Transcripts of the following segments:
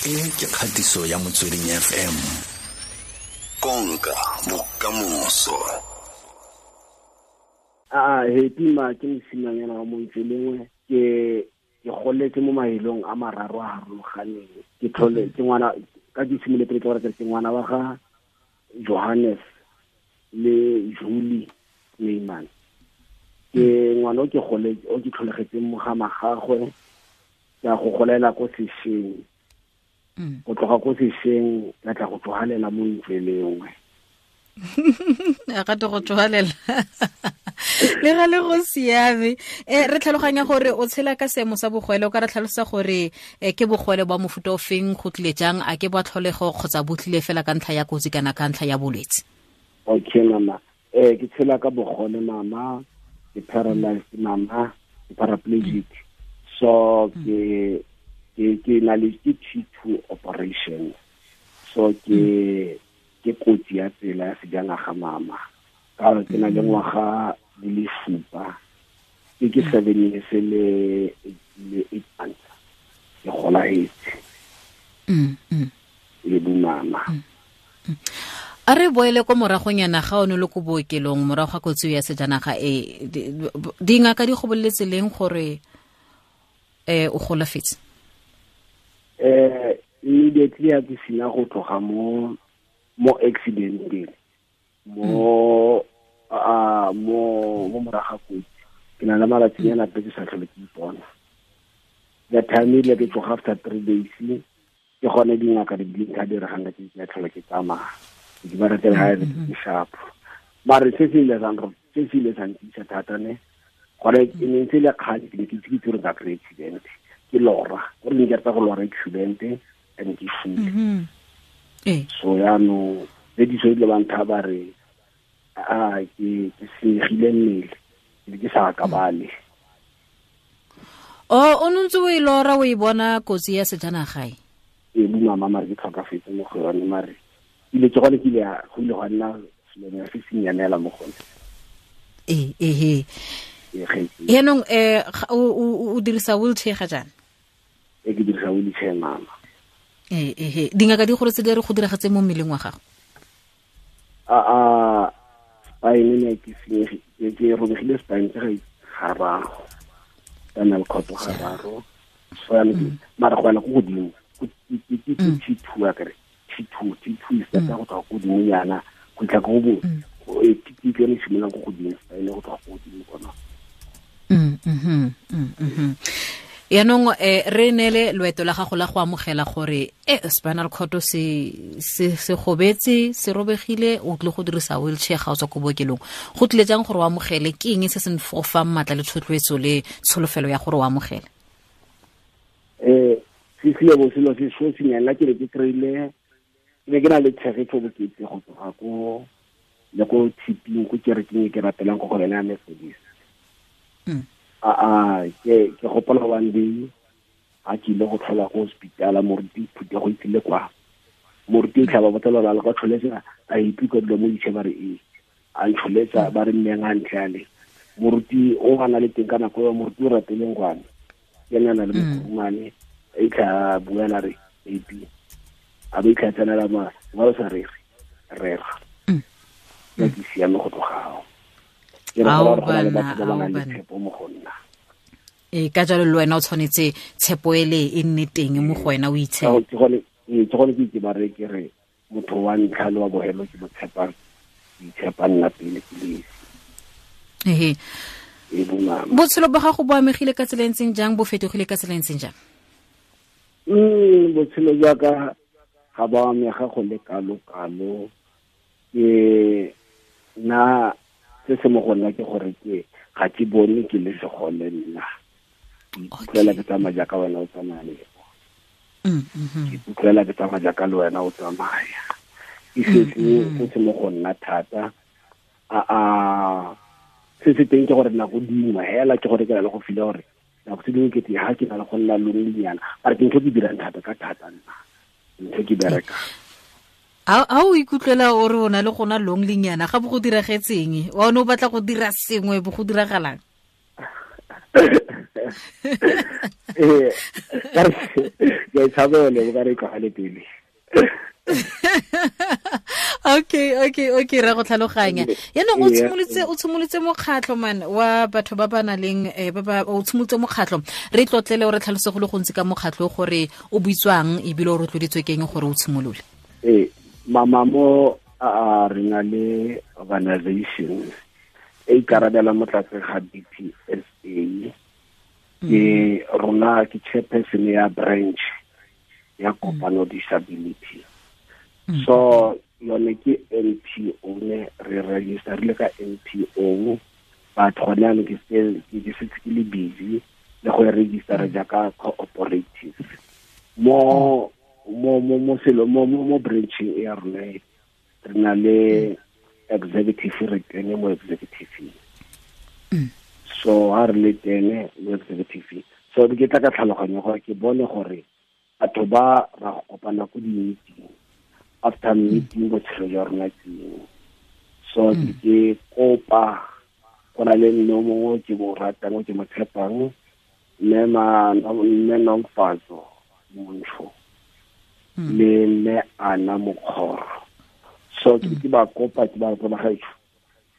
E ke kgatiso ya Motsweding FM. Konka bokamoso. A happy ma ke mosimanyana wa montse lengwe, ke goletse mo mahelong a mararo a harologaneng. Ke tlhole ke ngwana ka ke simoletse pele ke gore ke ngwana wa ga Johannes le Julie Neyman. Ke ngwana o ke gole o ke tlholegetseng mo ga magagwe, ke a go golela ko sešweng. Go tloga ko sešweng ka tla go tlogalela mo ntle lengwe. A ga go tlogalela le ga le go siame. Re tlhaloganya gore o tshela ka seemo sa bogwele, o ka re tlhalosa gore ke bogwele ba mofuta o feng, go tlile jang, a ke ba tlholego kgotsa bo tlile fela ka ntlha ya kotsi kana ka ntlha ya bolwetse? Okay mama, ke tshela ka bogole mama, ke paralyzed mama, ke paraplegic. So ke na le ke T2 operation. So ke kotsi ya tsela ya sejanaga mama. Ka gore ke na le ngwaga di le 7, ke 7 years le 8 months. Ke golahetse. Le bo mama. A re boele ko moragonyana ga o ne le ko bookelong morago ga kotsi ya sejanaga e, dingaka di go boleletse leng gore o golafetse? Immediately ya ke sina go tloga mo accidenteng, mo mo morago ga kotsi, ke na le malatsinyana pe ke sa tlhole ke ipona. The time ile ke tloga after 3 days, ke gone dingaka di bileng ka diregang ka ke tlhole ke tsamaya. Ke ba ratela ha re ke sharp. Mare se se ile sa se se ile sa ntisa thata ne. Gore e ne ntse le kgale ke ne ke itse ke tsere ka kry accident. Ke lora, gore ne ke rata go lora accident and ke fule. So yaanong le diso ile ba ntha ba re a ke senyegile mmele, ke ke sa akabale. O ntse o e lora o e bona kotsi ya sejanaga e? Ee, bo mama mare ke tlhokafetse mo go yone, mare ile ke gone ke ile go ile gwa nna selonyana se se nyanela mo gone. Ee. Yaanong o dirisa wheelchair ga jaana? Ee, ke dirisa wheelchair mama. Ee. Dingaka di gore tse di re go diragetse mo mmeleng wa gago? A spine ne ke senyegile, ke robegile spine tse ga gararo. Spinal cord gararo. So yaanong mara go yana ko godimo, ke T2 akere. T2, T2 is better go tloga ko godimo yana, go tla go bo, ke ke yone e simololang ko godimo, spine go tloga ko godimo kona. Yaanong re neele loeto la gago la go amogela gore spinal cord se gobetse, se robegile, o tlile go dirisa wheelchair ga o tswa ko bookelong. Go tlile jang gore o amogele? Ke eng se se go fang maatla le thotloetso le tsholofelo ya gore o amogele? Se sile bo selo se so senyana ke ne ke kry-ile, ke ne ke na le tshegetso bokete go tloga ko le ko tshiping, ko kerekeng e ke rapelang ko go yone ya Methodist. Ke gopola one day a ke ile go tlhola ko hospitala, moruti phuthego e tlile kwa. Moruti o tlhaba botsa ba le kwa tlholetsa, a ipikwa dilo mo ditšhe ba re ee. A ntlholetsa ba re mmeng a ntle ale. Moruti o a na le teng ka nako eo, moruti o rateleng kwane. Ke ena a na le mokurumane, a itlha a buela re AP. A ba itlha tsenela ma, ba o sa rere, rera. Ka ke siame go tloga ao. Ke re Ao gore go na le bana, batho ba ba ao nang le bana. tshepo mo go nna. Ka jalo le wena o tshwanetse tshepo ele e nne teng mo go wena, o itshepe. Ke gone ke itse ba re ke re motho wa ntlha le wa bohelo ke mo tshepang, ke itshepa nna pele ke le esi. E bo mama. Botshelo ba gago bo amegile ka tsela e ntseng jang, bo fetogile ka tsela e ntseng jang? Botshelo jwa ka ga bo amega go le kalo-kalo. Ke nna se se mo go nna ke gore ke ga ke bone ke le segole nna. Ke ikutlwela ke tsamaya jaaka wena o tsamaya le bo. Ke ikutlwela ke tsamaya jaaka le wena o tsamaya. Ke se se mo go nna thata. Se se teng ke gore nako dingwe hela ke gore ke na le go feel gore nako tse dingwe ke te ha ke na le go nna lonelynyana. Mara ke ntho ke dirang thata ka thata nna. Ntho ke bereka. A o ikutlwela o re o na le go nna lonelynyana, ga bo go diragetseng? Wa o ne o batla go dira sengwe, bo go diragalang? Ka re, Ke tshabele o ka re tlogale pele. Okay, re go tlhaloganya. Yaanong o tshimolotse mokgatlho man wa batho ba ba nang leng o tshimolotse mokgatlho. Re tlotlele o re tlhalose go le gontsi ka mokgatlho gore o buitswang ebile o rotloeditswe keng gore o tshimolole. Mama mo a re na le organization e ikarabela mo tlase ga DPSA. Ke rona ke chairperson ya branch ya Kopano Disability. So yone ke NPO ne re register le ka NPO, but gone jaanong ke setse ke le busy le go e register jaaka cooperative. Mo mo mo mo selo mo mo branching ya rona re na le executive, re tene mo executive. So ha re le tene mo executive, so ke tla ka tlhaloganyo gore ke bone gore batho ba ra go kopana ko di-meeting, after meeting botshelo jwa rona keng. So ke kopa go na le mme o mongwe ke mo ratang, ke mo tshepang, mme Nomfatso Montsho le mme Ana Mokgoro. So ke ba kopa, ke ba kopa gaetsho,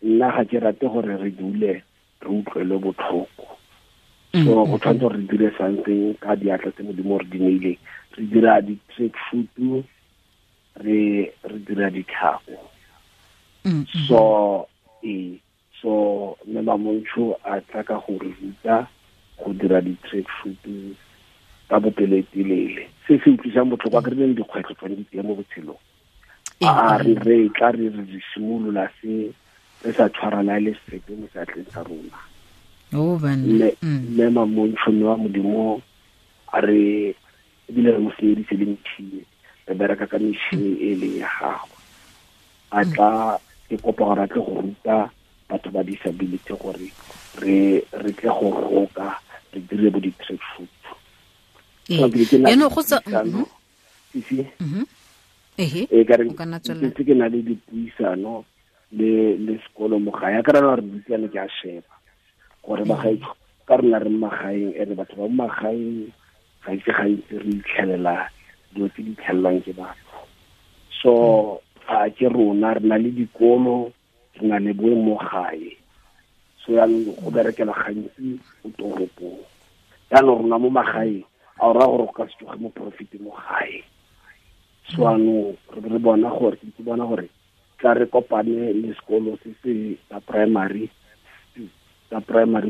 nna ga ke rate gore re dule re utlwele botlhoko. So go tshwanetse gore re dire something ka diatla tse Modimo re di neileng. Re dira di-track shoot, re dira ditlhako. So so mme Mamontsho a tla ka go re ruta go dira di-track shoot ka bopelotelele. Se se utlwisang botlhoko a ke re leng dikgwetlho tsone di teng mo botshelong. A re tla re simolola se re sa tshwarana le sepe mo seatleng sa rona. Mme Mamontsho mme wa Modimo a re ebile re mo senyeditse le metšhini, re bereka ka metšhini e leng ya gagwe. A tla ke kopa gore a tle go ruta batho ba disability gore re tle go roka, re dire bo di-track shoot. Ke na le dipuisano le sekolo mo gae. A ka rana re buisane, ke a sheba gore bagaetsho ka rona re magaeng, ene batho ba mo magaeng ga itse gantsi re itlhelela dilo tse di itlhelelwang ke batho. So a ke rona re na le dikolo, re na le boe mo gae. So yaanong go berekela gantsi ko toropong. Yaanong rona mo magaeng a o raya gore go ka se tsoge mo profit mo gae. So yaanong re bona gore ke bona gore tla re kopane le sekolo se se sa primary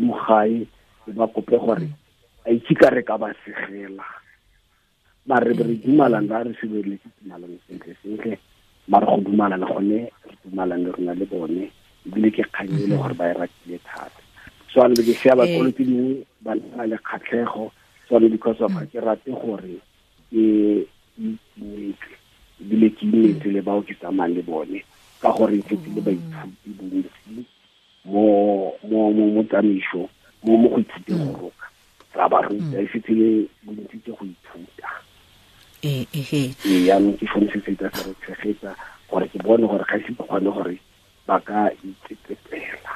mo gae, ba kope gore a itse ka re ka ba segela. Mare re dumalana, re sebeletse tumalano sentle sentle, mare go dumalana gone re dumalane rona le bone, ebile ke kgang e le gore ba e ratile thata. So ano ke sheba bakolo tse dingwe ba na le kgatlhego, so ano because of ga ke rate gore ke itumetse ebile ke imetse le bao ke tsamayang le bone, ka gore ke le baithuti bontsi mo tsamaiso mo go ithuteng go roka. Ra ba ruta e setse le bontsi ke go ithuta. Yaanong ke sone se se tla se re tshegetsa gore ke bone gore ga ise ke kgone gore ba ka itsetsepela.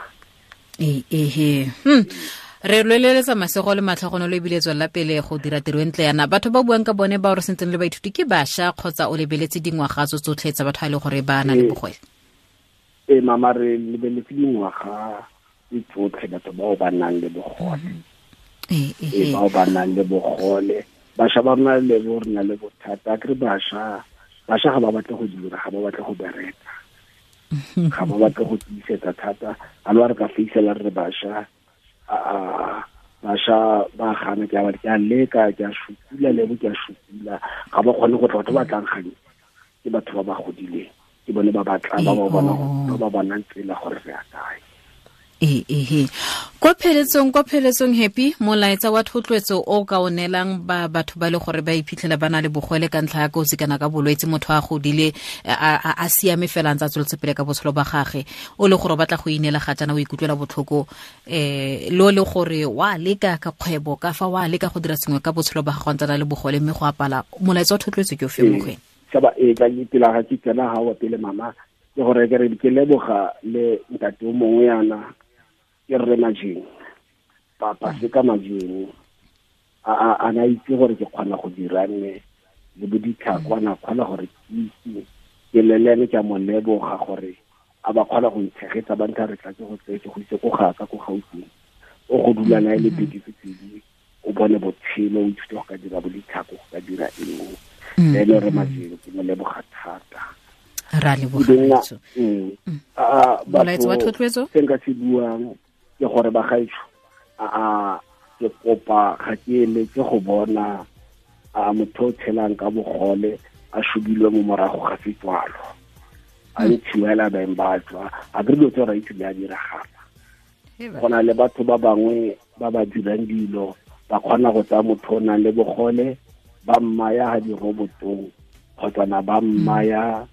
Re lweleletsa masego le matlhogonolo ebile tswelela pele go dira tiro e ntle yana. Batho ba buang ka bone ba re sentseng le baithuti ke bašwa kgotsa o lebeletse dingwaga tso tsotlhe tsa batho ba e le gore ba na le bogole? Mama re lebeletse dingwaga tse tsotlhe batho bao ba nang le bogole. Bao ba nang le bogole. Bašwa ba rona le bo re na le bothata. Ke re bašwa ga ba batle go dira, ga ba batle go bereka, ga ba batle go tiisetsa thata. A le wa re ka feisela re bašwa, bašwa ba gana, ke a leka, ke a šupula le bo ke a šupula, ga ba kgone go tla. Batho ba tlang gantsi ke batho ba ba godileng, ke bone ba batlang, ba ba bonang tsela gore re ya kae. Kwa pheletsong Happy, molaetsa wa thotloetso o ka o neelang ba batho ba le gore ba iphitlhela ba na le bogole ka ntlha ya kotsi kana ka bolwetse, motho a godile a siame fela ntse a tsweletse pele ka botshelo ba gagwe, o le gore o batla go ineela ga jaana o ikutlwela botlhoko, lo le gore wa leka ka kgwebo ka fa wa leka go dira sengwe ka botshelo ba gagwe ntse a na le bogole mme go apala, molaetsa wa thotloetso ke o fe mo go ene? Shaba ka pela ga ke tsena ga wa pele mama, ke gore ke re ke leboga le ntate o mongwe yana ke rre Majeng, papa se ka Majeng. A na itse gore ke kgona go dira nne le bo ditlhako, a na kgona gore ke itse ke lelene, ke a mo leboga gore a ba kgona go ntshegetsa, ba ntha re tla ke go tseye ke go itse ko gaka ko Gauteng, o go dula nae le beke tse pedi, o bone botshelo, o ithute go ka dira bo ditlhako, go ka dira eng. Le ene re Majelo, ke mo leboga thata. Ra leboga. Molaetso wa thotloetso se nka se buang ke gore bagaetsho, a ke kopa ga ke eletse go bona a motho o tshelang ka bogole a shubilwe mo morago ga setswalo, a ntshiwela beng ba tswa a ke dilo tse ra itse di a diragala. Go na le batho ba bangwe ba ba dirang dilo, ba kgona go tsaya motho o nang le bogole ba mmaya ha dirobotong kgotsa na ba mmaya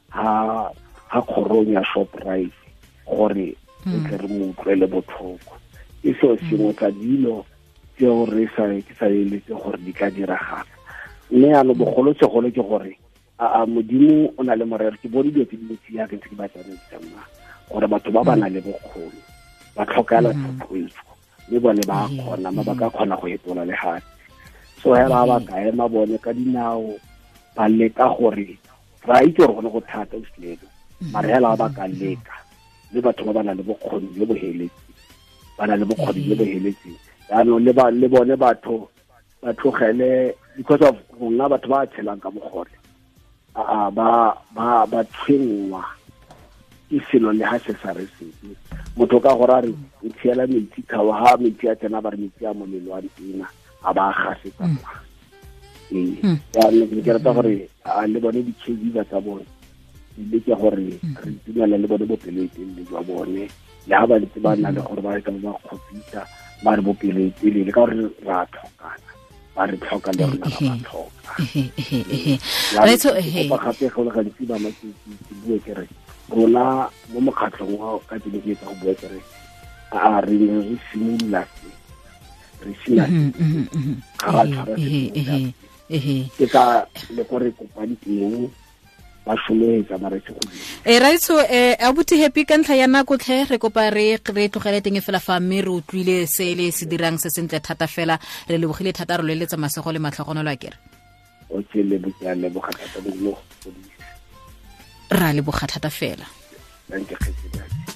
ha kgorong ya Shoprite gore re tle re mo utlwele botlhoko. E seo sengwe tsa dilo tseo re sa ke sa eletse gore di ka diragala. Mme yaanong bogolosegolo ke gore a Modimo o na le morero. Ke bone dilo tse dintsi yaka ntse ke ba tsamaisa mma, gore batho ba ba nang le bokgoni ba tlhokela thotloetso, mme bone ba kgona, mme ba ka kgona go etola lefatshe. So hela ba ka ema bone ka dinao, ba leka gore ra itse gore gone go thata o selelo, mare hela ba ka leka, mme batho ba ba nang le bokgoni jo bo heletseng, ba na le bokgoni jo bo heletseng. Jaanong le bone batho ba tlogele, because of rona batho ba tshelang ka bogole ba tshwenngwa ke selo le ha se sa re sepe. Motho ka gore a re o tshiela metsi khawa, ha metsi a tsena ba re metsi a molelo a ntena, a ba gasetsa kwa. Jaanong ke rata gore a le bone di-caregiver tsa bone di leke gore re itumela le bone bopelotelele jwa bone, le ha ba ntse ba na le gore ba ka ba kgopisa, ba re bopelotelele ka gore ra tlhokana, ba re tlhoka le rona ra ba tlhoka. Kopa gape go le gantsi ba ke bue ke re rona mo mokgatlhong wa ka ke ne ke etsa go bua ke re a re ne re simolola se re sina ga ra tshwara se, ke ka le ko re kopang teng ba šometsa ba re se go dira. Raitsho, abuti Happy, ka ntlha ya nako tlhe re kopa re tlogele teng fela fa, mme re utlwile se le se dirang se sentle thata fela, re lebogile thata, re loeletsa masego le matlhogonolo a kere. Okay, leboga thata, Modimo go godise. Ra leboga thata fela. Thank you.